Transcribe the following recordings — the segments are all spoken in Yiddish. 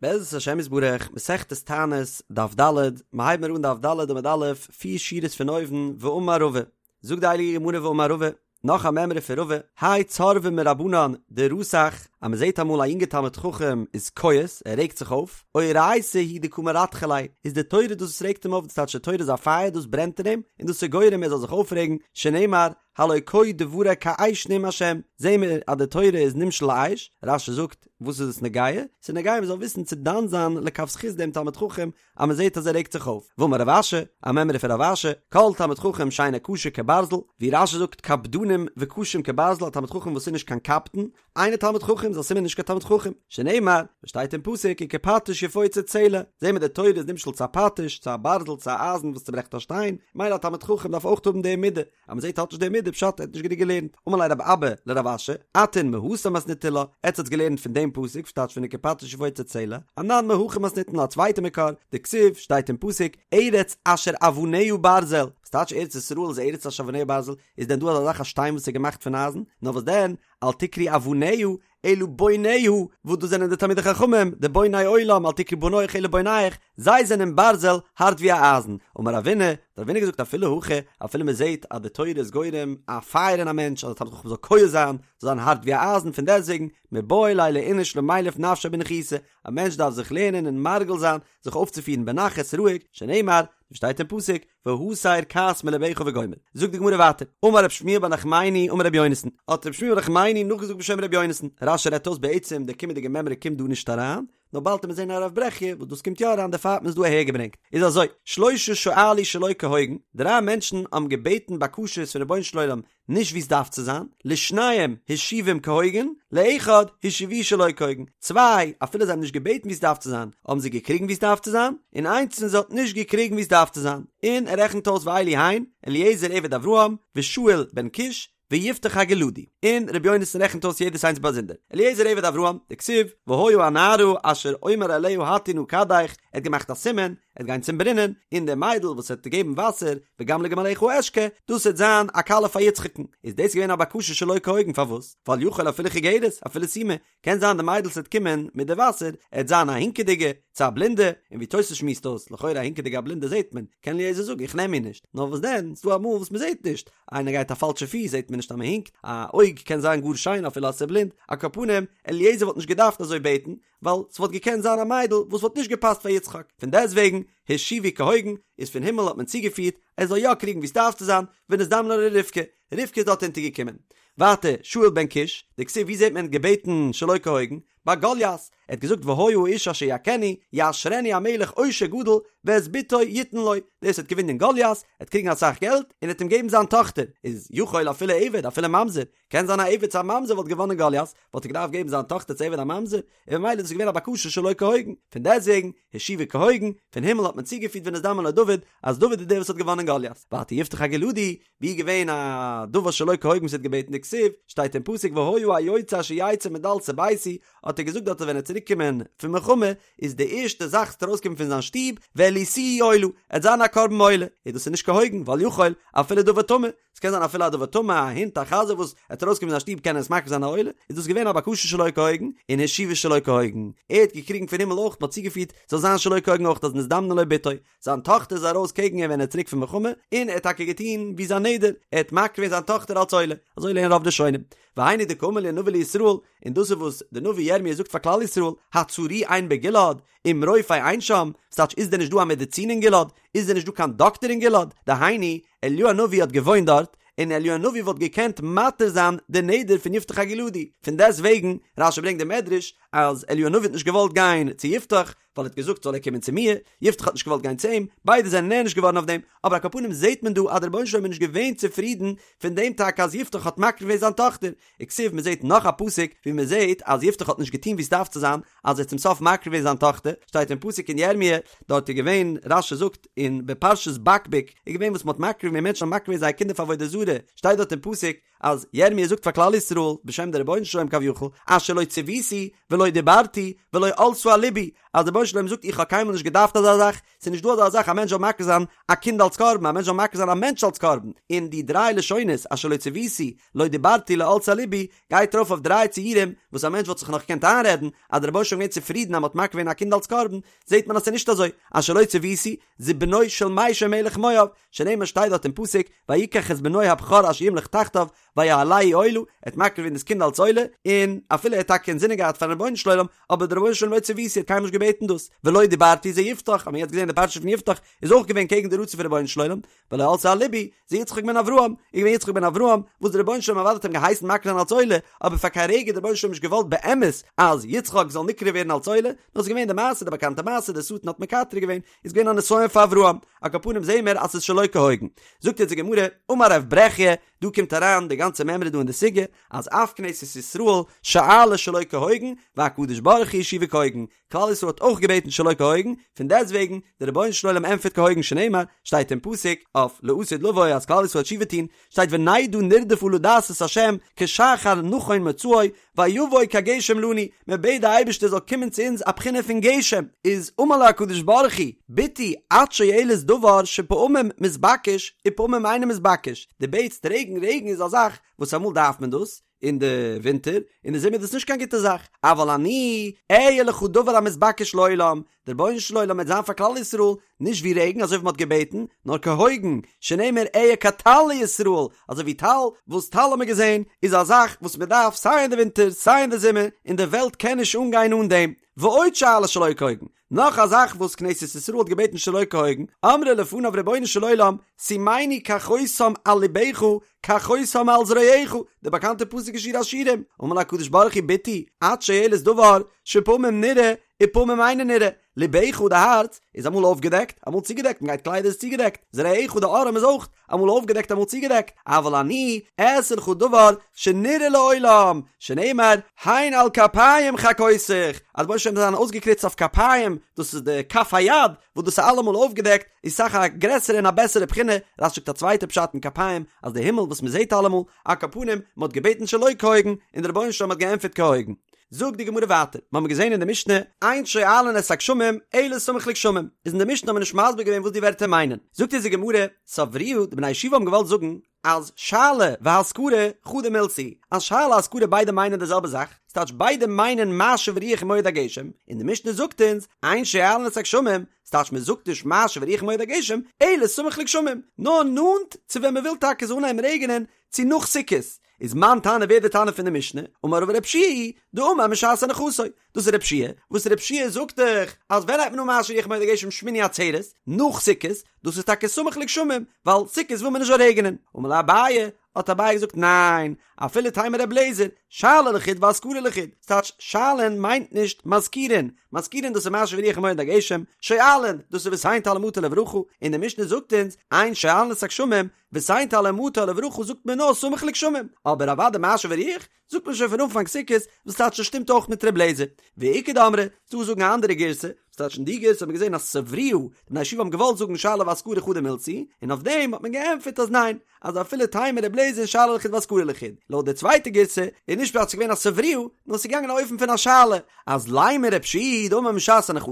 בעזרת השם יתברך, מסכת תענית, דף ד', מ'הייבן מיר אן דף ד' עמוד א', פיר שורות פון אויבן, ואמר רבא, זאגט די הייליגע גמרא ואמר רבא, נאך א מימרא פון רבא, האי צורבא מרבנן דרתח, אז מ'זעט אמאל א יונגע תלמיד חכם איז כועס, ער רעגט זיך אויף, אורייתא היא דקא מרתחא ליה, איז די תורה דאס וואס רעגט אים אויף, דאס טייטש די תורה איז א פייער דאס ברענט אין אים, און דאס איז גורם ער זאל זיך אויפרעגן, שנאמר, הלא כה דברי כאש נאם השם, זעהן מיר אז די תורה איז נמשל לאש, רש"י זאגט, וואס איז עס נוגע? ס'איז נוגע מ'זאל וויסן צו דן זיין לכף זכות דעם תלמיד חכם אז מ'זעהט אז ער רעגט זיך אויף. ואמר רב אשי, א מימרא פון רב אשי, כל תלמיד חכם שאינו קשה כברזל, ווי רש"י זאגט קפדנים וקשים כברזל א תלמיד חכם וואס איז נישט קיין קפדן, אינו תלמיד חכם איז א סימן נישט קיין תלמיד חכם, שנאמר, וואס שטייט אין פסוק וכפטיש יפוצץ סלע, זעהן מיר די תורה איז נמשל צו א פטיש, צו א ברזל, צו א אייזן וואס צוברעכט א שטיין, מילא א תלמיד חכם דארף אויך האבן די מידה, אז מען זעט ער האט נישט די מידה פשט ער האט נישט גענוג געלערנט, אמר ליה רב אבא לרב אשי, אתון מהתם מתניתו לה, עטס האטס געלערנט פון דעם פסוק וואס טייטש פון וכפטיש יפוצץ סלע, אנן מהכא מתנינן לה א צווייטע מקור, דכתיב, שטייט אין פסוק, ארץ אשר אבניה ברזל, וואס טייטש ארץ ישראל איז ארץ אשר אבניה ברזל, איז דען דא אזא זאך א שטיין וואס איז געמאכט פון אייזן, נאר וואס דען, אל תקרי אבניה, אלא בוניה, וואס דאס זענען די תלמידי חכמים, די בוני עולם, אל תקרי בניך אלא בונייך, זיי זענען ברזל, הארט ווי א אייזן. אמר רבינא, האט רבינא געזאגט אפילו הכי, אפילו מען זעט אז די תורה איז גורם א פייער אין א מענטש, אז א תלמיד חכם זאל כועס זיין, זאל זיין הארט ווי א אייזן, פון דעסטוועגן, מיבעי ליה לאיניש למילף נפשיה בניחותא, א מענטש דארף זיך לערנען און מרגיל זיין, זיך אויפצופירן בנחת, רואיג, שנאמר, ווי שטייט אין פסוק, והסר כעס מלבך וגומר. זאגט די גמרא ווייטער, אמר רב שמואל בר נחמני אמר רבי יונתן, האט רב שמואל בר נחמני נאכגעזאגט בשם רבי יונתן, רש"י רעדט אויס בעצם די קומענדיגע מימרא קומט דא נישט אריין, נאר באלד וועט מען זען א רב ברכיה וואס דאס קומט יא אריין דערפאר האט מען עס דא אהער געברענגט, איז אזוי, שלשה שאלו שלא כהוגן, דריי מענטשן האבן געבעטן בקשות פון רבונו של עולם נישט ווי עס דארף צו זיין, לשניים השיבום כהוגן, לאחד השיבוהו שלא כהוגן, צוויי, אפילו זיי האבן נישט געבעטן ווי עס דארף צו זיין, האבן זיי געקריגן ווי עס דארף צו זיין, און איינס פון זיי האט נישט געקריגן ווי עס דארף צו זיין, און ער רעכנט אויס ואלו הן, אליעזר עבד אברהם, ושאול בן קיש, ויפתח הגלעדי, און רבי יונתן רעכנט אויס יעדעס איינס באזונדער, אליעזר עבד אברהם, דכתיב, והיה הנערה אשר אומר אליה הטי נא כדך, ער האט געמאכט א סימן, ער וועט גיין צום ברינען, און די מיידל וואס וועט געבן וואסער, וגם לגמליך אשקה, דאס וועט זיין א כלה פאר יצחק'ן. איז דאס געווען א בקשה שלא כהוגן, פארוואס? ווייל יכול אפילו חיגרת, אפילו סומא, קען זיין די מיידל וואס וועט קומען מיט די וואסער, עט זיין א הינקעדיגע, צו א בלינדע, און ווי תוס' שמועסט אויס, לכאורה א הינקעדיגע א בלינדע זעט מען, קען אליעזר זאגן איך נעם איר נישט, נאר וואס דען, ס'דא אמאל וואס מ'זעט נישט, איינער גייט א פאלשע פיס זעט מען נישט אז מ'הינקט, א אויג קען זיין גאר שיין אפילו אז ס'איז בלינד, על כל פנים, אליעזר וואלט נישט געדארפט אזוי בעטן, ווייל ס'וואלט געקענט זיין א מיידל וואס וואלט נישט געפאסט פאר יצחק, פון דעסטוועגן השיבו כהוגן, איז פון הימל האט מען צוגעפירט ער זאל יא קריגן ווי ס'דארף צו זיין, ונזדמנה לו רבקה, רבקה איז דארט אונטערגעקומען. ווייטער, שאול בן קיש, דכתיב ווי זעט מען געבעטן שלא כהוגן? ביי גוליית, ער האט געזאגט והיה האיש אשר יכנו, יעשרנו המלך עושר גדול, ואת בתו יתן לו, דער וואס וועט געווינען גוליית, עט קריגן אסאך געלט, און עט אים געבן זיין טאכטער, איז יכול אפילו עבד אפילו ממזר, קען זיין א עבד צו א ממזר וואלט געוואנען גוליית, וואלט ער געדארפט געבן זיין טאכטער צו עבד א ממזר, און ממילא איז דאס געווען א בקשה שלא כהוגן, פון דעסטוועגן, השיבו כהוגן, פון הימל האט מען צוגעפירט ונזדמן לו דוד, אז דוד איז דער וואס האט געוואנען גוליית. ווייטער יפתח הגלעדי, ווי איז געווען א דבר שלא כהוגן וואס ער האט געבעטן דכתיב, שטייט אין פסוק והיה היוצא אשר יצא מדלתי ביתי, האט ער געזאגט דארט אז ווען ער וועט צוריק קומען פון מלחמה, איז די ערשטע זאך וואס וועט ארויסקומען פון זיין שטוב, והעליתיהו עולה, עט זיין א קרבן עולה, איז דאס איז נישט כהוגן, ווייל יכול, אפילו דבר טמא, ס'קען זיין אפילו א דבר טמא, א הונט, א חזיר וואס עט ארויסקומען פון זיין שטוב קען ער עס מקריב זיין א עולה, איז דאס געווען א בקשה שלא כהוגן, און השיבו שלא כהוגן, ער האט געקריגן פון הימל אויך, מ'האט צוגעפירט זאל זיין שלא כהוגן אויך אז נזדמנה לו בתו, זיין טאכטער איז ארויס קעגן אים ווען ער איז צוריק פון מלחמה, און ער האט טאקע געטון ווי זיין נדר, ער האט מקריב געווען זיין טאכטער אלס עולה, אזוי לערנען רוב ראשונים. והיינו דקאמר להו נביא לישראל, און דאס איז וואס די נביא ירמי' זאגט פאר כלל ישראל, הצרי אין בגלעד, אם רופא אין שם, ס'טייטש איז דען נישט דא א מעדיצין אין גלעד? איז דען נישט דא קיין דאקטער אין גלעד? דהיינו, אליהו הנביא האט געוואוינט דארט, און אליהו הנביא וואלט געקענט מתיר זיין די נדר פון יפתח הגלעדי, פון דעסט וועגן, רש"י ברענגט די מדרש, אז אליהו הנביא האט נישט געוואלט גיין צו יפתח, ווייל ער האט געזאגט זאל ער קומען צו מיר, יפתח האט נישט געוואלט גיין צו אים, ביידע זענען נענש געווארן אויף דעם, אבער על כל פנים זעט מען דא אז דער רבונו של עולם איז נישט געווען צופרידן פון דעם טאקע אז יפתח האט מקריב געווען זיין טאכטער, וכתיב מען זעט נאך א פסוק ווי מען זעט אז יפתח האט נישט געטון ווי עס דארף צו זיין, אז ער האט צום סוף מקריב געווען זיין טאכטער, שטייט אין פסוק אין ירמיה, דארט איז געווען, רש"י זאגט אין בפרשת בקבוק, איז געווען וואס מען האט מקריב געווען, מענטשן האבן מקריב געווען זייער קינדער פאר עבודה זרה, שטייט דארט אין פסוק. אז ירמי' זאגט פאר כלל ישראל בשם די רבונו של עולם כביכול, אשר לא צויתי ולא דיברתי ולא עלתה על לבי, אז די רבונו של עולם זאגט איך האב קיינמאל נישט געדארפט אזא זאך, ס'איז נישט דא אזא זאך א מענטש זאל מקריב זיין א קינד אלס קרבן, א מענטש זאל מקריב זיין א מענטש אלס קרבן, און די דריי לשונות אשר לא צויתי, לא דיברתי לא עלתה על לבי, גייט ארויף אויף דריי ציורים וואס א מענטש וואלט זיך נאך געקענט איינרעדן אז דער רבונו של עולם איז געווען צופרידן אז מ'האט מקריב געווען א קינד אלס קרבן, זעט מען אז ס'איז נישט אזוי, אשר לא צויתי, זה בנו של מישע מלך מואב, שנאמר שטייט דארט אין פסוק, ויקח את בנו הבכור אשר ימלוך תחתיו, ויעלהו עולה, ער האט מקריב געווען דאס קינד אלס עולה, און אפילו ער האט טאקע אינזינען געהאט פארן רבונו של עולם, אבער דער רבונו של עולם לא צויתי האט קיינמאל נישט געבעטן דאס, ולא דיברתי זה יפתח, האט מען יעצט געזען די פרשה פון יפתח איז אויך געווען קעגן די רצון פון רבונו של עולם, ולא עלתה על לבי, זה יצחק בן אברהם, איז געווען יצחק בן אברהם, וואס דער רבונו של עולם אוודאי האט אים געהייסן מקריב זיין אלס עולה, אבער פאר קיין רגע האט דער רבונו של עולם נישט געוואלט באמת אז יצחק זאל נקרב ווערן אלס עולה, נאר ס'איז געווען די מעשה, די באקאנטע מעשה, דער שטן האט מקטרג געווען, איז געווען א נסיון פאר אברהם, על כל פנים זעהן מיר אז ס'איז שלא כהוגן. זאגט יעצט די גמרא, אמר רב ברכיה, דא קומט אריין די גאנצע מימרא דא אין די סוגיא, אז אף כנסת ישראל שאלה שלא כהוגן, והקדוש ברוך הוא השיבה כהוגן, כלל ישראל האט אויך געבעטן שלא כהוגן, פון דעסטוועגן, דער רבונו של עולם ענטפערט כהוגן שנאמר, שטייט אין פסוק, אויף לעתיד לבוא אז כלל ישראל וועט תשובה טון, שטייט ונדעה נרדפה לדעת את ה' כשחר נכון מוצאו ויבוא כגשם לנו, מען בעט די אייבערשטער זאל קומען צו אונז א בחינה פון גשם, איז אמר לה הקדוש ברוך הוא, בתי את שואלת דבר שפעמים מתבקש ופעמים אינו מתבקש, דו בעטסט רעגן, רעגן איז א זאך וואס אמאל דארף מען דאס, אין די ווינטער, אין די זומער איז דאס נישט קיין גוטע זאך, אבל אני אהיה לך דבר המתבקש לעולם, דער רבונו של עולם וועט זיין פאר כלל ישראל נישט ווי רעגן אזוי ווי מען האט געבעטן, נאר כהוגן, שנאמר אהיה כטל לישראל, אזוי ווי טל, וואס טל האט מען געזען איז א זאך וואס מען דארף סיי אין די ווינטער סיי אין די זומער, און די וועלט קען נישט אנגיין אן דעם, ועוד שאלה שלא כהוגן, נאך א זאך וואס כנסת ישראל האט געבעטן שלא כהוגן, אמרה לפניו רבונו של עולם, שימני כחותם על לבך, כחותם על זרועך, די באקאנטע פסוק אין שיר השירים, אמר לה הקדוש ברוך הוא בתי, את שואלת דבר שפעמים נראה ופעמים אינו נראה, לבך די הארץ איז אמאל אויפגעדעקט אמאל צוגעדעקט מען גייט קליידער איז צוגעדעקט, זרועך די ארעם איז אויך אמאל אויפגעדעקט אמאל צוגעדעקט, אבל אני אעשה לך דבר שנראה לעולם, שנאמר הן על כפיים חקותיך, אז רבונו של עולם זאל זיין אויסגעקריצט אויף כפיים, דאס איז די כף היד, וואס דאס איז אלעמאל אויפגעדעקט, איז אסאך א גרעסערע און א בעסערע בחינה, רש"י זאגט א צווייטע פשט אין כפיים, אז די הימל וואס מען זעט אלעמאל, על כל פנים, מען האט געבעטן שלא כהוגן, און דער רבונו של עולם האט געענטפערט כהוגן. זאגט די גמרא ווייטער, מיר האבן געזען אין די משנה, אין שואלין את הגשמים אלא סמוך לגשמים, איז אין די משנה האט מען נישט מסביר געווען וואס די ווערטער מיינען, זאגט אונז די גמרא, סברוה, די בני הישיבה האבן געוואלט זאגן, אז שאלה והזכרה חדא מילתא היא, אז שאלה הזכרה ביידע מיינען די זעלבע זאך, ס'טייטש ביידע מיינען משיב הרוח ומוריד הגשם, און די משנה זאגט אונז, אין שואלין את הגשמים, ס'טייטש מען זאגט נישט משיב הרוח ומוריד הגשם, אלא סמוך לגשמים, נאר נאנט צו ווען מ'וויל טאקע ס'זאל אנהייבן רעגענען, צו נאך סוכות, איז מאן תנא ווער די תנא פון די משנה, אמר רבא רב יהושע היא דאמר משעת הנחתו, דאס איז רב יהושע, וואס רב יהושע זאגט דאך אז ווען הייבט מען אן משיב הרוח ומוריד הגשם שמיני עצרת, נאך סוכות, דאס איז טאקע סמוך לגשמים, ווייל סוכות וויל מען נישט זאל רעגענען, אמר ליה אביי, האט אביי געזאגט ניין, אפילו תימא רבי אליעזר, שאלה לחוד והזכרה לחוד, ס'טייטש שואלין מיינט נישט מזכירין, מזכירין דאס איז משיב הרוח ומוריד הגשם, שואלין דאס איז ותן טל ומטר לברכה, און די משנה זאגט אונז, אין שואלין את הגשמים, ותן טל ומטר לברכה זאגט מען נאר סמוך לגשמים, אבער אוודאי משיב הרוח זאגט מען שוין פון אנפאנג סוכות, וואס טייטש עס שטימט אויך מיט ר' לעזער. ואיכא דאמרי, ס'דא וואס זאגן א אנדערע גירסא, וואס טייטש אין די גירסא האט מען געזען אז סברוה, די בני הישיבה האבן געוואלט זאגן שאלה והזכרה חדא מילתא היא, און אויף דעם האט מען געענטפערט אז ניין, אז אפילו תימא ר' לעזער שאלה לחוד והזכרה לחוד. לויט די צווייטע גירסא איז נישט פשט ס'איז געווען א סברוה, נאר ס'איז געגאנגען א אופן פון א שאלה, אז לימא רב יהושע היא דאמר משעת הנחתו,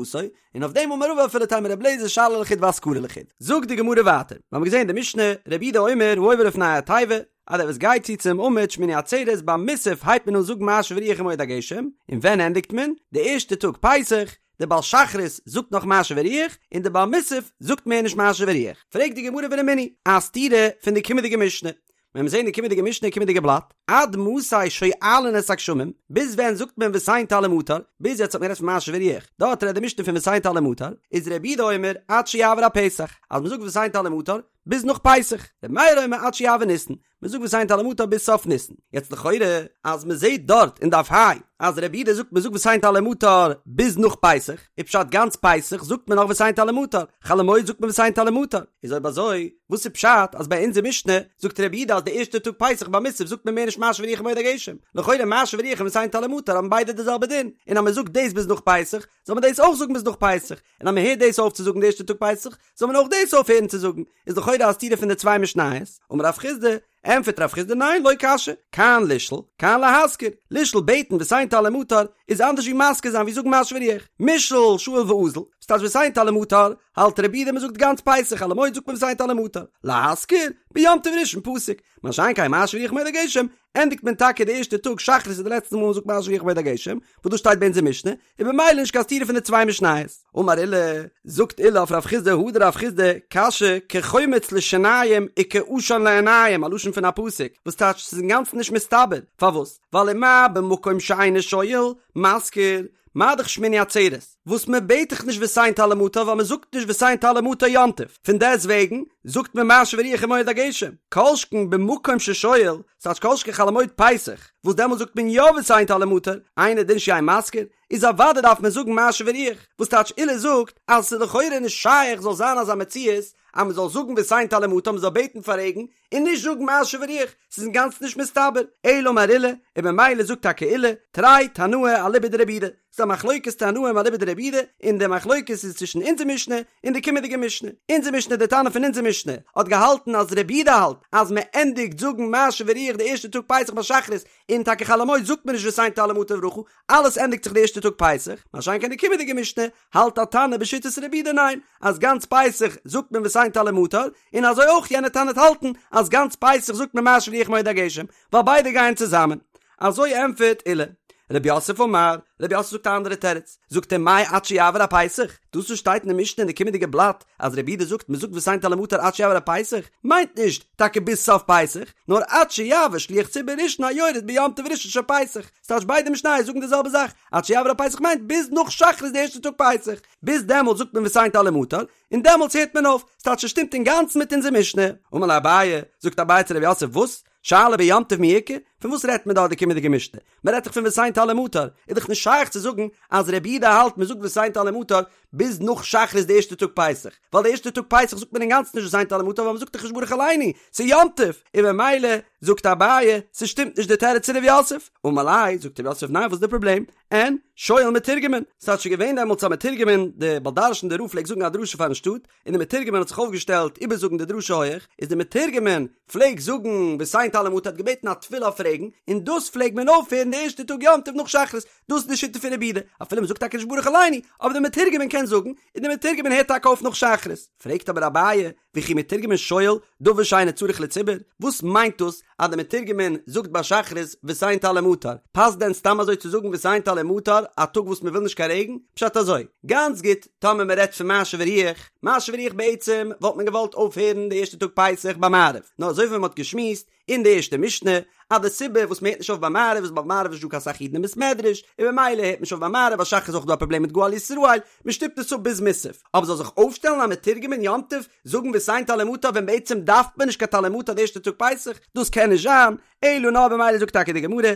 און אויף דעם אמר רבא אפילו תימא רבי אליעזר שאלה לחוד והזכרה לחוד. זאגט די גמרא ווייטער, מיר האבן געזען אין די משנה, רבי יהודה אומר העובר לפני התיבה, אז דער וואס גייט צו צום עמוד שמיני עצרת ביים מוסף הייבט מען אן זאגן משיב הרוח ומוריד הגשם, און ווען ענדיגט מען? די ערשטע טאג פסח, דער בעל שחרית זאגט נאך משיב הרוח, און דער בעל מוסף זאגט מער נישט משיב הרוח. פרעגט די גמרא ורמינהי, א סתירה פון די קומענדיגע משנה, ווען מיר זעהן די קומענדיגע משנה קומענדיגע בלאט, עד מתי שואלין את הגשמים, ביז ווען זאגט מען ותן טל ומטר, ביז יעצט האט מען גערעדט פון משיב הרוח, דארט רעדט די משנה פון ותן טל ומטר, איז רבי יהודה אומר עד שיעבור הפסח, אז מען זאגט ותן טל ומטר ביז נאך פסח, רבי מאיר אומר עד שיעבור ניסן, מען זאגט ותן טל ומטר ביז סוף ניסן, יעצט לכאורה אז מען זעהט דארט אין דף ה' אז רבי יהודה זאגט מען זאגט ותן טל ומטר ביז נאך פסח, איז פשט גאנץ פסח זאגט מען נאך ותן טל ומטר, חול המועד זאגט מען ותן טל ומטר, איז אויב אזוי וואס איז פשט אז ביי אונזער משנה זאגט רבי יהודה אז די ערשטע טאג פסח ביי מוסף זאגט מען מער נישט משיב הרוח ומוריד הגשם? לכאורה משיב הרוח און ותן טל ומטר האבן ביידע די זעלבע דין, און אז מען זאגט דאס ביז נאך פסח, זאל מען דאס אויך זאגן ביז נאך פסח, און אז מען הערט דאס אויף צו זאגן די ערשטע טאג פסח, זאל מען אויך דאס אויפהערן צו זאגן, איז לכאורה א סתירה פון די צוויי משניות. אמר רב חסדא, ענטפערט רב חסדא ניין לא קשיא, כאן לשאול, כאן להזכיר, לשאול בעטן ותן טל ומטר איז אנדערש ווי מזכיר זיין ווי זאגן משיב הרוח, מישאל שאיל ואזיל, וואס טייטש ותן טל ומטר, האלט רבי יהודה מ'זאגט גאנץ פסח חול המועד זאגט מען ותן טל ומטר, להזכיר, ביום טוב ראשון פסיק, מה שאין כן משיב הרוח ומוריד הגשם, ענדיגט מען טאקע די ערשטע טאג שחרית איז די לעצטע מאל מ'זאגט משיב הרוח ומוריד הגשם, וואס דאס שטייט ביי אונזער משנה, איז במילא נישט קיין סתירה פון די צוויי משניות. אמר עולא, זאגט עולא אויף רב חסדא הדר רב חסדא, קשיא, כחומץ לשיניים וכעשן לעיניים, א לשון פון א פסוק, וואס טייטש ס'איז אינגאנצן נישט מסתבר, פארוואס? ווייל ומה במקום שאינו שואל, מזכיר, מה דאך שמיני עצרת, וואס מען בעט דאך נישט ותן טל ומטר ווייל מען זאגט נישט ותן טל ומטר יום טוב, פון דעסט וועגן זאגט מען משיב הרוח ומוריד הגשם, כל שכן במקום ששואל, ס'טייטש כל שכן חול המועד פסח, וואס דעמאלט זאגט מען יא ותן טל ומטר, אינו דין שיהא מזכיר, איז אוודאי דארף מען זאגן משיב הרוח, וואס טייטש עולא זאגט אז ס'איז לכאורה נישט שייך זאל זיין אזא מציאות אז מען זאל זאגן ותן טל ומטר מען זאל בעטן פאר רעגן, און נישט זאגן משיב הרוח, ס'איז אינגאנצן נישט מסתבר, אלא אמר עולא, און ממילא זאגט טאקע עולא, תרי תנאי אליבא דרבי יהודה, ס'איז א מחלוקת תנאים אליבא דרבי יהודה, און די מחלוקת איז צווישן אונזער משנה און די קומענדיגע משנה. אונזער משנה, די תנא פון אונזער משנה, האט געהאלטן אז רבי יהודה האלט אז מען ענדיגט זאגן משיב הרוח די ערשטע טאג פסח ביי שחרית, און טאקע חול המועד זאגט מען נישט ותן טל ומטר לברכה, אלעס ענדיגט זיך די ערשטע טאג פסח, מה שאין כן די קומענדיגע משנה האלט א תנא בשיטת רבי יהודה ניין, אז גאנץ פסח זאגט מען ותן טל ומטר, און אזוי אויך יענע תנא וועט האלטן אז גאנץ פסח זאגט מען משיב הרוח ומוריד הגשם, ווייל ביידע גייען צוזאמען. אזוי ענטפערט עולא. רב יוסף אמר, רב יוסף זאגט א אנדערע תירוץ, זאגט ער מאי עד שיעבור הפסח, דאס וואס שטייט אין די משנה אין די קומענדיגע בלאט אז רבי יהודה זאגט מען זאגט ותן טל ומטר עד שיעבור הפסח, מיינט נישט טאקע ביז סוף פסח, נאר עד שיעבור שליח ציבור ראשון היורד ביום טוב ראשון של פסח, ס'טייטש ביידע משניות זאגן די זעלבע זאך, עד שיעבור הפסח מיינט ביז נאך שחרית די ערשטע טאג פסח, ביז דעמאלטס זאגט מען ותן טל ומטר, און דעמאלטס הערט מען אויף, ס'טייטש ס'שטימט אינגאנצן מיט אונזער משנה. אמר ליה אביי, זאגט אביי צו רב יוסף, וואס? שאלה ביום טוב מי איכא? פון וואס רעדט מען דא די קומענדיגע משנה? מען רעדט דאך פון ותן טל ומטר, איז דאך נישט שייך צו זאגן אז רבי יהודה האלט מען זאגט ותן טל ומטר ביז נאך שחרית די ערשטע טאג פסח, ווייל די ערשטע טאג פסח זאגט מען אינגאנצן נישט ותן טל ומטר ווייל מען זאגט דאך נישט ברך עלינו, ס'איז יום טוב, און ממילא זאגט אביי ס'שטימט נישט די תירוץ פון רב יוסף, אמר ליה, זאגט רב יוסף ניין וואס איז די פראבלעם? אין, שואל מתורגמן, ס'האט שוין געווען דעמאלטס א מתורגמן, די בעל דרשן די רב פלעגט זאגן א דרשה פארן שטאט, און די מתורגמן האט זיך אויפגעשטעלט איבערזאגן די דרשה הויעך, איז די מתורגמן פלעג זאגן ותן טל ומטר האט געבעטן א תפילה אויף רעגן, און דאס פלעג מען אויפהערן די ערשטע טאג יום טוב נאך שחרית, דאס איז די שיטה פון רבי יהודה, אפילו מען זאגט טאקע נישט ברך עלינו, אבער די מתורגמן קען זאגן, און די מתורגמן הערט טאקע אויף נאך שחרית. פרעגט אבער אביי, וכי מתורגמן שואל דבר שאינו צריך לציבור, וואס מיינט דאס אז די מתורגמן זאגט ביי שחרית ותן טל ומטר, פאסט דען סתם אזוי צו זאגן ותן טל ומטר א טאג וואס מען וויל נישט קיין רעגן? פשט אזוי, גאנץ גוט, טאמער מען רעדט פון משיב הרוח, משיב הרוח בעצם וואלט מען געוואלט אויפהערן די ערשטע טאג פסח ביי מעריב, נאר אזוי ווי מען האט געשמועסט אין די ערשטע משנה אז די סיבה וואס מען הערט נישט אויף ביי מעריב איז ווייל ביי מעריב איז נישט דא קיין סאך אידן אין בית מדרש, און במילא הערט מען נישט אויף ביי מעריב, ביי שחרית איז אויך דא א פראבלעם מיט גאל ישראל, מען שטופט עס אפ ביז מוסף, אבער זאל זיך אויפשטעלן א מתורגמן יום טוב זאגן ותן טל ומטר ווען בעצם דארף מען נישט קיין טל ומטר די ערשטע טאג פסח, דאס קען נישט זיין, אלא נאר במילא זאגט טאקע די גמרא,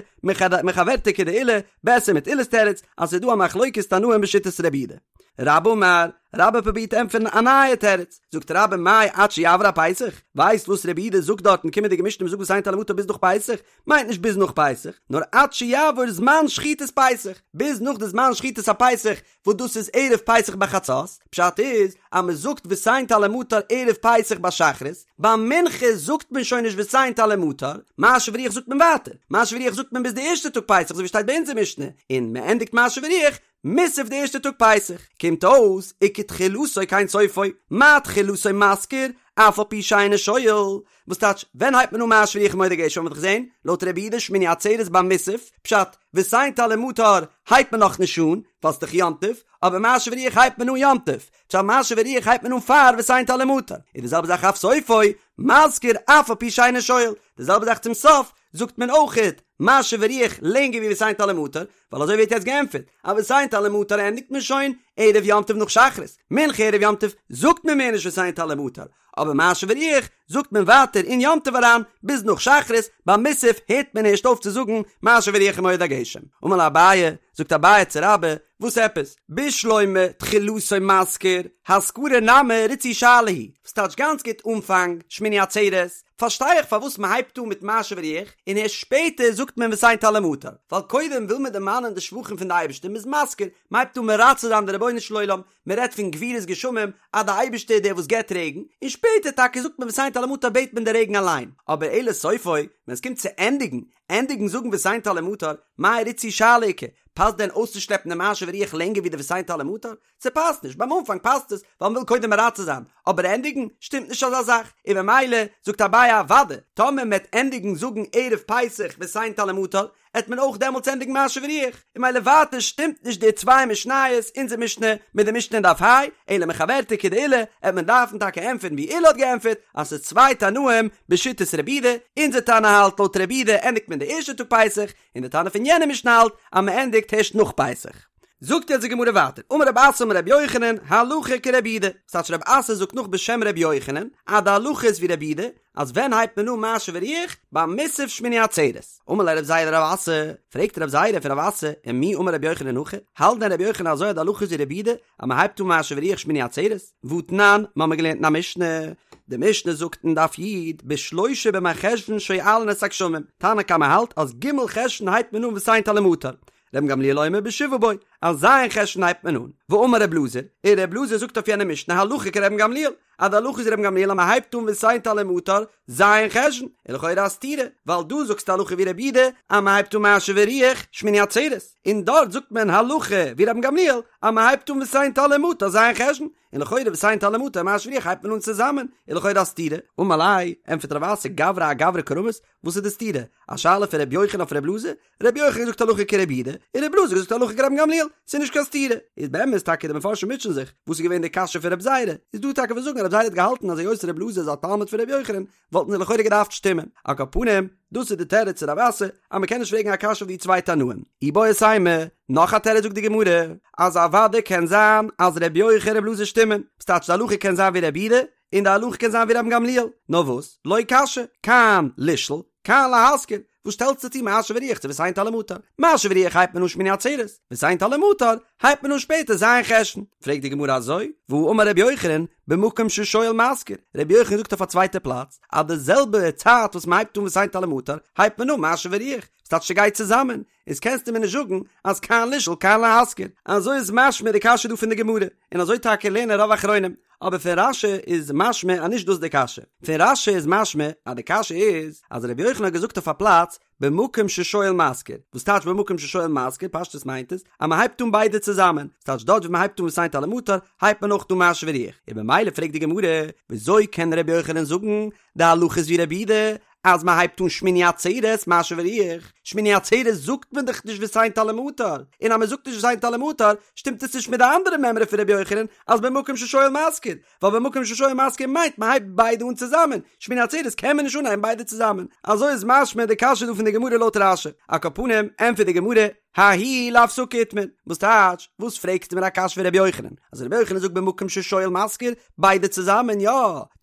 מחוורתא כדעולא, בעסער מיט עולא'ס תירוץ, אז ס'איז דא א מחלוקת תנאים בשיטת רבי יהודה. רבה אמר, רבה פרובירט ענטפערן א נייע תירוץ, זאגט רבה מאי עד שיעבור הפסח, ווייסט וואס רבי יהודה זאגט דארט אין קומענדיגע משנה מ'זאגט ותן טל ומטר ביז נאך פסח, מיינט נישט ביז נאך פסח, נאר עד שיעבור זמן שחיטת פסח, ביז נאך די זמן שחיטת הפסח, וואס דאס איז ערב פסח ביי חצות, פשט איז אז מען זאגט ותן טל ומטר ערב פסח ביי שחרית, ביי מנחה זאגט מען שוין נישט ותן טל ומטר, משיב הרוח זאגט מען ווייטער, משיב הרוח זאגט מען ביז די ערשטע טאג פסח אזוי ווי שטייט ביי אונזער משנה, און מען ענדיגט משיב הרוח מוסף די ערשטע טאג פסח, קומט אויס וכתחילתו כן סופו, מה תחילתו מזכיר, אף על פי שאינו שואל, וואס טייטש ווען הייבט מען אן משיב הרוח ומוריד הגשם האט מען דאך געזען לויט רבי יהודה שמיני עצרת ביי מוסף, פשט, ותן טל ומטר הייבט מען נאך נישט אן, ווייל ס'דאך יום טוב, אבער משיב הרוח הייבט מען אן יום טוב, פשט משיב הרוח הייבט מען אן פאר ותן טל ומטר, און די זעלבע זאך אף סופו, מזכיר אף על פי שאינו שואל, די זעלבע זאך צום סוף, זאגט מען אויכעט משיב הרוח לענגער ווי ותן טל ומטר, ווייל אזוי ווערט יעצט געענטפערט, אז ותן טל ומטר ענדיגט מען שוין ערב יום טוב נאך שחרית, מנחה ערב יום טוב זאגט מען מער נישט ותן טל ומטר, אבער משיב הרוח זאגט מען ווייטער אין יום טוב אריין ביז נאך שחרית, ביי מוסף הערט מען ערשט אויף צו זאגן משיב הרוח ומוריד הגשם. אמר ליה אביי, זאגט אביי צו רבה, וואס עפעס? בשלמא תחילתו מזכיר, הזכרה נמי ריצוי שאלה היא, וואס טייטש גאנץ גוט אנפאנג שמיני עצרת, פארשטיי איך פארוואס מען הייבט אן מיט משיב הרוח און הערשט שפעטער זאגט מען ותן טל ומטר, ווייל קודם וויל מען דערמאנען די שבחים פון די אייבערשטער, מען איז מזכיר, מען הייבט אן מרצה זיין די רבונו. רבונו של עולם, מען רעדט פון גבורות גשמים אז די אייבערשטער איז דער וואס געבט רעגן, און שפעטער טאקע זאגט מען ותן טל ומטר בעט מען די רעגן אליין, אבער אלא סופו, ווען עס קומט צו ענדיגן, ענדיגן זאגן ותן טל ומטר, מאי ריצוי שאלה איכא, פאסט דען אויסצושלעפן די משיב הרוח לענגער ווי די ותן טל ומטר? ס'פאסט נישט, ביים אנפאנג פאסט עס ווייל מ'וויל קודם מרצה זיין, אבער ענדיגן שטימט נישט אזא זאך, און ממילא זאגט אביי אוודאי, טאמער מ'עט ענדיגן זאגן ערב פסח ותן טל ומטר, עט מען אויך דעמאלטס ענדיגן משיב הרוח, און ממילא ווייטער שטימט נישט די צוויי משניות, אונזער משנה מיט די משנה אין דף ה', אלא מחוורתא כדעולא, עט מען דארפן טאקע ענטפערן ווי עולא האט געענטפערט, אז ס'איז צוויי תנאים בשיטת רבי יהודה, אונזער תנא האלט לויט רבי יהודה ענדיגט מען די ערשטע טאג פסח, און די תנא פון יענע משנה האלט אז מ'ענדיגט הערשט נאך פסח. זאגט יעצט די גמרא ווייטער, אמר רב אסי אמר רבי יוחנן, הלכה כרבי יהודה, ס'טייטש רב אסי זאגט נאך בשם רבי יוחנן, אז די הלכה איז ווי רבי יהודה, אז ווען הייבט מען אן משיב הרוח? ביי מוסף שמיני עצרת. אמר ליה רב זירא לרב אסי, פרעגט רב זירא פון רב אסי, ומי אמר רבי יוחנן הכי, האלט דען רבי יוחנן אזוי אז די הלכה איז ווי רבי יהודה, אז מען הייבט אן משיב הרוח שמיני עצרת? והתנן, מ'האמיר געלערנט אין א משנה, די משנה זאגט אין דף י, בשלושה במרחשוון שואלין את הגשמים, תנא קמא האלט אז ג' חשוון הייבט מען אן ותן טל ומטר, רבן גמליאל אומר בשבעה בו, אז ז' חשוון הייבט מען אן. ואמר רב אלעזר, און רב אלעזר זאגט אויף יענע משנה הלכה כרבן גמליאל, אז די הלכה איז רבן גמליאל אז מען הייבט אן ותן טל ומטר ז' חשוון, איז לכאורה א סתירה, ווייל דא זאגסטו הלכה ווי רבי יהודה אז מען הייבט אן משיב הרוח שמיני עצרת, און דארט זאגט מען הלכה ווי רבן גמליאל אז מען הייבט אן ותן טל ומטר ז' חשוון, און לכאורה ותן טל ומטר משיב הרוח הייבט מען אן צוזאמען, איז לכאורה א סתירה. אמר ליה, ענטפערט רב אסי גברא אגברא קא רמית, וואס איז די סתירה? א שאלה פון ר' יוחנן אויף ר' אלעזר? ר' יוחנן זאגט הלכה כר' יהודה, און ר' אלעזר זאגט הלכה כרבן גמליאל, ס'איז נישט קיין סתירה. איז באמת טאקע די מפרשים מוטשען זיך, וואס איז געווען די קשיא פון רב זירא? איז דא טאקע וואס זאגן אז רב זירא האט געהאלטן אז היות ר' אלעזר איז א תלמיד פון ר' יוחנן, וואלטן זיי לכאורה געדארפט שטימען. על כל פנים, דאס איז די תירוץ צו רב אסי, אז מ'קען נישט פרעגן א קשיא אויף די צוויי תנאים. איבעית אימא, נאך א תירוץ זאגט די גמרא, אז אוודאי קען זיין אז ר' יוחנן און ר' אלעזר שטימען, ס'טייטש די הלכה קען זיין ווי ר' יהודה, און די הלכה קען זיין ווי רבן גמליאל, נאר וואס, לא קשיא, כאן לשאול, כאן להזכיר, וואס שטעלסטו צו משיב הרוח צו ותן טל ומטר? משיב הרוח הייבט מען אן שמיני עצרת, ותן טל ומטר הייבט מען אן שפעטער ז' חשוון. פרעגט די גמרא אזוי, והאמר רבי יוחנן, במקום ששואל מזכיר, רבי יוחנן זאגט אויף א צווייטע פלאץ, אז די זעלבע צייט וואס מען הייבט אן ותן טל ומטר, הייבט מען אן משיב הרוח, ס'טייטש ס'גייט צוזאמען, איז קענסטו מיר נישט זאגן אז כאן לשאול כאן להזכיר, אזוי איז משמע די קשיא דא פון די גמרא, און אזוי טאקע לערנען רוב אחרונים, אבער פון רש"י איז משמע אז נישט דאס איז די קשיא, פון רש"י איז משמע אז די קשיא איז אז רבי יוחנן האט געזאגט אויף א פלאץ במקום ששואל מזכיר, וואס טייטש במקום ששואל מזכיר, פשטות מיינט עס אז מען הייבט אן ביידע צוזאמען, ס'טייטש דארט ווי מען הייבט אן ותן טל ומטר הייבט מען אויך אן משיב הרוח, און במילא פרעגט די גמרא, וויאזוי קען רבי יוחנן זאגן די הלכה איז ווי רבי יהודה אז מען הייבט אן שמיני עצרת משיב הרוח, שמיני עצרת זאגט מען דאך נישט ותן טל ומטר, און אז מען זאגט נישט ותן טל ומטר שטימט עס נישט מיט די אנדערע מימרא פון רבי יוחנן אז במקום ששואל מזכיר, ווייל במקום ששואל מזכיר מיינט מען הייבט ביידע אן צוזאמען, שמיני עצרת קען מען נישט אנהייבן ביידע צוזאמען, אזוי איז משמע די קשיא דא פון די גמרא לויט רש"י, על כל פנים ענטפערט די גמרא, ההיא להפסקה איתמר, וואס טייטש, וואס פרעגסטו מיר א קשיא פון רבי יוחנן, אז רבי יוחנן זאגט במקום ששואל מזכיר, ביידע צוזאמען, יא,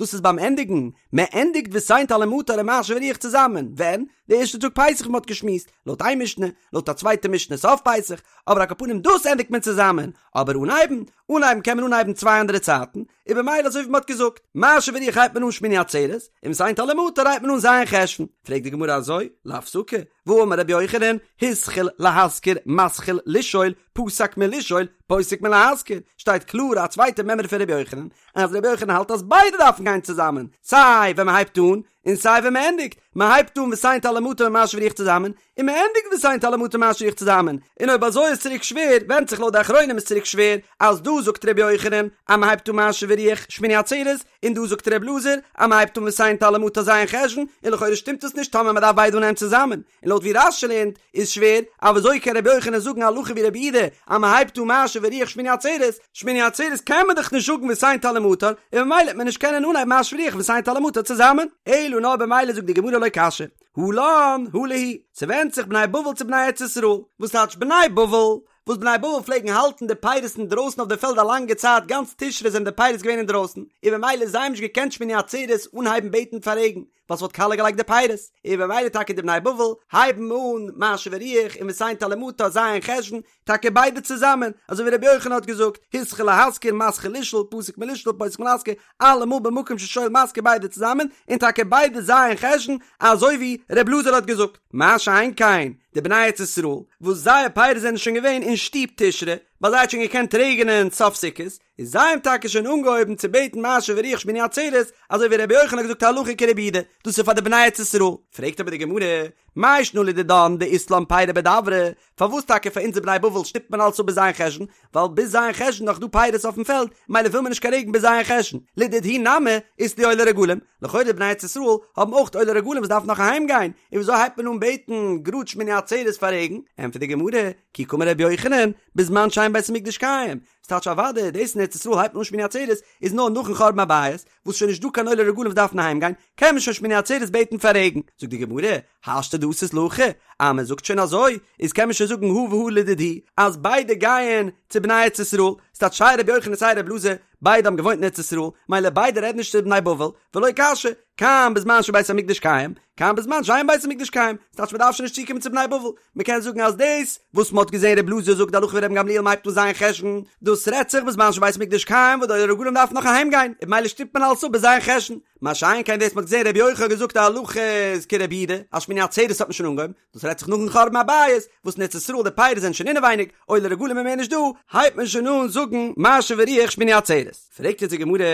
דאס איז ביים ענדיגן, מען ענדיגט ותן טל ומטר און משיב הרוח צוזאמען, ווען? די ערשטע טאג פסח ווי מען האט געשמועסט, לויט איין משנה, לויט א צווייטע משנה סוף פסח, אבער על כל פנים דאס ענדיגט מען צוזאמען, אבער אנהייבן? אנהייבן קען מען אנהייבן צוויי אנדערע צייטן, און במילא אזוי ווי מען האט געזאגט, משיב הרוח הייבט מען אן שמיני עצרת, און ותן טל ומטר הייבט מען אן ז' חשוון, פרעגט די גמרא אזוי, להפסקה, והאמר רבי יוחנן, התחיל להזכיר מתחיל לשאול, פסק מלשאול, פוסק מלהזכיר, שטייט קלאר א צווייטע מימרא פון רבי יוחנן, אז רבי יוחנן האלט אז ביידע דארפן גיין צוזאמען, סיי ווען מען הייבט אן, און סיי ווען מען ענדיגט, מען הייבט אן ותן טל ומטר און משיב הרוח צוזאמען, און מען ענדיגט ותן טל ומטר משיב הרוח צוזאמען, און אויב אזוי איז צוריק שווער, ווענדט זיך לויט די אחרונים איז צוריק שווער, אז דא זאגט רבי יוחנן אז מען הייבט אן משיב הרוח שמיני עצרת, און דא זאגט ר' אלעזר אז מען הייבט אן ותן טל ומטר ז' חשוון, און לכאורה שטימט עס נישט טאמער מען דארף ביידע אנהייבן צוזאמען, און לויט ווי רש"י לערנט איז שווער, אז וויאזוי קען רבי יוחנן זאגן הלכה ווי רבי יהודה אז מען הייבט אן משיב הרוח שמיני עצרת, שמיני עצרת קען מען דאך נישט זאגן ותן טל ומטר, און ממילא וועט מען נישט קענען אנהייבן משיב הרוח ותן טל ומטר צוזאמען, אלא נאר במילא זאגט די גמרא לא קשיא, הא לן הא להו, ס'ווענדט זיך בני בבל צו בני ארץ ישראל, וואס טייטש בני בבל? וואס בני בבל פלעגן האלטן די פירות אינדרויסן אויף די פעלד א לאנגע צייט, גאנץ תשרי זענען די פירות געווען אינדרויסן, און במילא זיי האבן נישט געקענט שמיני עצרת אנהייבן בעטן פאר רעגן, ווייל ס'וואלט קאליע געלייגט די פירות, און במילא טאקע די בני בבל הייבן אן משיב הרוח און ותן טל ומטר ז' חשוון, טאקע ביידע צוזאמען, אזוי ווי רבי יוחנן האט געזאגט, התחיל להזכיר מתחיל לשאול, פסק מלשאול פוסק מלהזכיר, אלעמאל במקום ששואל מזכיר ביידע צוזאמען, און טאקע ביידע ז' חשוון, אזוי ווי ר' אלעזר האט געזאגט. מה שאין כן, די בני ארץ ישראל, וואס זייער פירות זענען שוין געווען אין שטוב תשרי, ביי זיי האט שוין געקענט רעגענען סוף סוכות, איז זיי האבן טאקע שוין אנגעהויבן צו בעטן משיב הרוח שמיני עצרת, אזוי ווי רבי יוחנן האט געזאגט הלכה כרבי יהודה, דאס איז פאר די בני ארץ ישראל. פרעגט אבער די גמרא, מאי שנא לדידן דאית לן פירי בדברא, פארוואס טאקע פאר אונז די בני בבל שטופט מען אלץ אפ ביז ז' חשון, ווייל ביז ז' חשון נאך דא פירות אויפן פעלד, מילא וויל מען נישט קיין רעגן ביז ז' חשון, לדידהו נמי אית להו עולי רגלים, לכאורה די בני ארץ ישראל האבן אויך עולי רגלים וואס דארפן נאך אהיים גיין, און וויאזוי הייבט מען אן בעטן גראד שמיני עצרת פאר רעגן? ענטפערט די גמרא, כי קאמר רבי יוחנן, בזמן שאין בית המקדש קיים, ס'טייטש אוודאי דאס אין ארץ ישראל הייבט מען אן שמיני עצרת איז נאר נאכן חורבן הבית, וואס שוין נישט דא קיין עולי רגלים וואס דארפן אהיים גיין, קען מען שוין שמיני עצרת בעטן פאר רעגן, זאגט די גמרא, השתא דאתית להכי, אז מען זאגט שוין אזוי, איז קען מען שוין זאגן הא והא לדידהו, אז ביידע גייען צו בני ארץ ישראל, ס'טייטש סיי רבי יוחנן סיי רבי אלעזר, ביידע האבן געוואוינט אין ארץ ישראל, מילא ביידע רעדן נישט צו בני בבל, ולא קשיא, כאן בזמן שבית המקדש קיים, כאן בזמן שאין בית המקדש קיים, ס'טייטש מען דארף שוין נישט צוקומען צו בני בבל, מען קען זאגן אז דאס וואס מען האט געזען רבי אלעזר זאגט די הלכה ווי רבן גמליאל מ'הייבט אן ז' חשון, דאס רעדט זיך בזמן שבית המקדש קיים וואס די עולי רגלים דארפן נאך אהיים גיין, און במילא שטופט מען אלעס אפ ביז ז' חשון, מה שאין כן דאס מען האט געזען רבי יוחנן האט געזאגט די הלכה איז כרבי יהודה, אז שמיני עצרת האט מען שוין אנגעהויבן, דאס רעדט זיך נאכן חורבן הבית, וואס אין ארץ ישראל די פירות זענען שוין אינעווייניג, עולי רגלים איז מער נישט דא, הייבט מען שוין אן זאגן משיב הרוח שמיני עצרת. פרעגט יעצט די גמרא,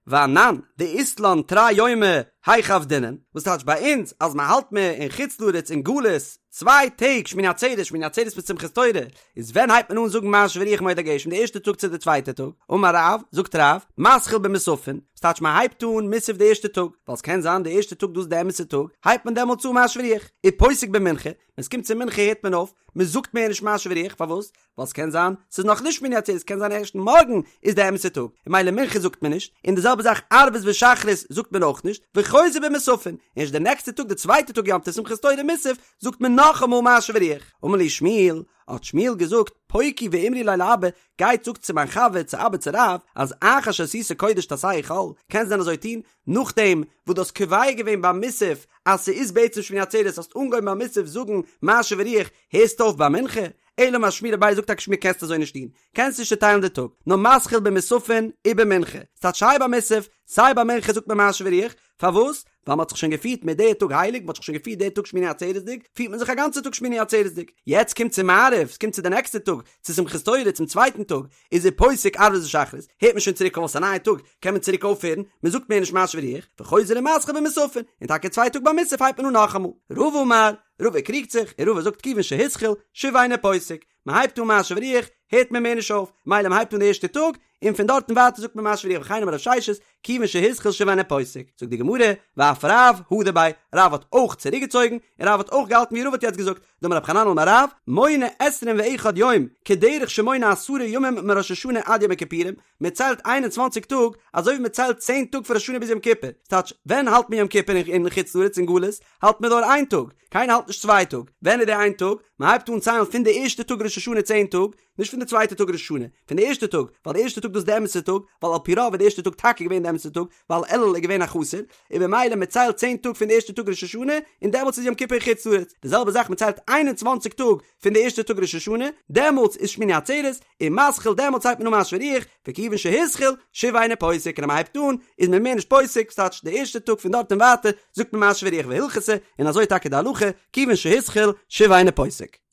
ואנן, דאית לן תרי יומי, היכי עבדינן, וואס טייטש ביי אונז אז מען האלט מען אין חוץ לארץ אין גלות צוויי טעג שמיני עצרת שמיני עצרת מיט שמחת תורה, איז ווען הייבט מען אן זאגן משיב הרוח מוריד הגשם די ערשטע טאג צו די צווייטע טאג? אמר רב, זאגט רב, מתחיל במוספין, וואס טייטש מען הייבט אן מוסף די ערשטע טאג, ווייל ס'קען זיין די ערשטע טאג דאס איז די אמת'ע טאג, הייבט מען דעמאלטס אן משיב הרוח, ופוסק במנחה, ווען ס'קומט צו מנחה הערט מען אויף, מען זאגט מער נישט משיב הרוח, פארוואס? ווייל ס'קען זיין ס'איז נאך נישט שמיני עצרת, ס'קען זיין ערשט מארגן איז די אמת'ע טאג, און מילא מנחה זאגט מען נישט, און די זעלבע זאך ערבית ושחרית זאגט מען אויך נישט, וחוזר במוספין, ערשט די נעקסטע טאג די צווייטע טאג יום טוב שמחת תורה מוסף זאגט מען נאכאמאל משיב הרוח. אמר להו שמואל, האט שמואל געזאגט, פוקו ואמרו ליה לאבא, גייט זאגט צו מיין חבר צו אבא צו רב, אז אחר שעשית קודש תעשהו חול, קענסט דען אזוי טון, נאכדעם וואס דו האסט קובע געווען ביי מוסף אז ס'איז בעצם שמיני עצרת האסט אנגעהויבן ביי מוסף זאגן משיב הרוח, הערסט אויף ביי מנחה? אלא אמר שמואל אביי זאגט טאקע שמואל קענסט אזוי נישט טון, קענסט נישט צוטיילן די טאג, נאר מתחיל במוספין ובמנחה, ס'טייטש סיי ביי מוסף סיי ביי מנחה זאגט מען משיב הרוח, פארוואס? ווייל מ'האט זיך שוין געפירט מיט די טאג הייליג, מ'האט זיך שוין געפירט די טאג שמיני עצרת'דיג, פירט מען זיך א גאנצע טאג שמיני עצרת'דיג, יעצט קומט צו מעריב, ס'קומט צו די נעקסטע טאג, צו שמחת תורה, צום צווייטן טאג, איז ופוסק ערבית ושחרית, הערט מען שוין צוריק אויף, ס'איז א נייע טאג, קען מען צוריק אויפהערן, מ'זאגט מער נישט משיב הרוח, וחוזר ומתחיל במוספין, און טאקע צווייטע טאג ביי מוסף הייבט מען אן נאכאמאל. רבא אמר, רבא קריגט זיך, און רבא זאגט כיוון שהתחיל, שוב אינו פוסק, מען הייבט אן משיב הרוח, הערט מען מער נישט אויף, מילא מען הייבט אן די ערשטע טאג, און פון דארטן ווייטער זאגט מען משיב הרוח וכן אמר רב ששת, כיוון שהתחיל שוב אינו פוסק, זאגט די גמרא, ואף רב הדר ביה, רב האט אויך צוריק געצויגן, און רב האט אויך געהאלטן ווי רבא האט יעצט געזאגט, דאמר רב חננאל אמר רב, מונה עשרים ואחד יום, כדרך שמונה עשרה ימים מראש השנה עד יום הכיפורים, מען ציילט איין און צוואנציג טאג, אזוי ווי מען ציילט צען טאג פון ראש השנה ביז יום כיפור, ס'טייטש, ווען האלט מען יום כיפור אין חוץ לארץ אין גלות, האלט מען נאר איין טאג, קיינער האלט נישט צוויי טאג, ווען איז די איין טאג? מען הייבט אן ציילן פון די ערשטע טאג ראש השנה צען טאג, נישט פון די צווייטע טאג ראש השנה, פון די ערשטע טאג, ווייל די ערשטע טאג דאס איז די אמת'ע טאג, ווייל על פי רוב איז די ערשטע טאג טאקע געווען די אמת'ע טאג, ווייל אלול איז געווען א חסר, און במילא מען ציילט צען טאג פון די ערשטע טאג ראש השנה, און דעמאלטס איז יום כיפור אין חוץ לארץ, די זעלבע זאך מען ציילט איין און צוואנציג טאג פון די ערשטע טאג ראש השנה, דעמאלטס איז שמיני עצרת, און מתחיל דעמאלטס הייבט מען אן משיב הרוח, וכיוון שהתחיל, שוב אינו פוסק, און אז מען הייבט אן, איז מען מער נישט פוסק, ס'טייטש די ערשטע טאג פון דארט און ווייטער, זאגט מען משיב הרוח והלכתא, און אזוי טאקע די הלכה, כיוון שהתחיל, שוב אינו פוסק.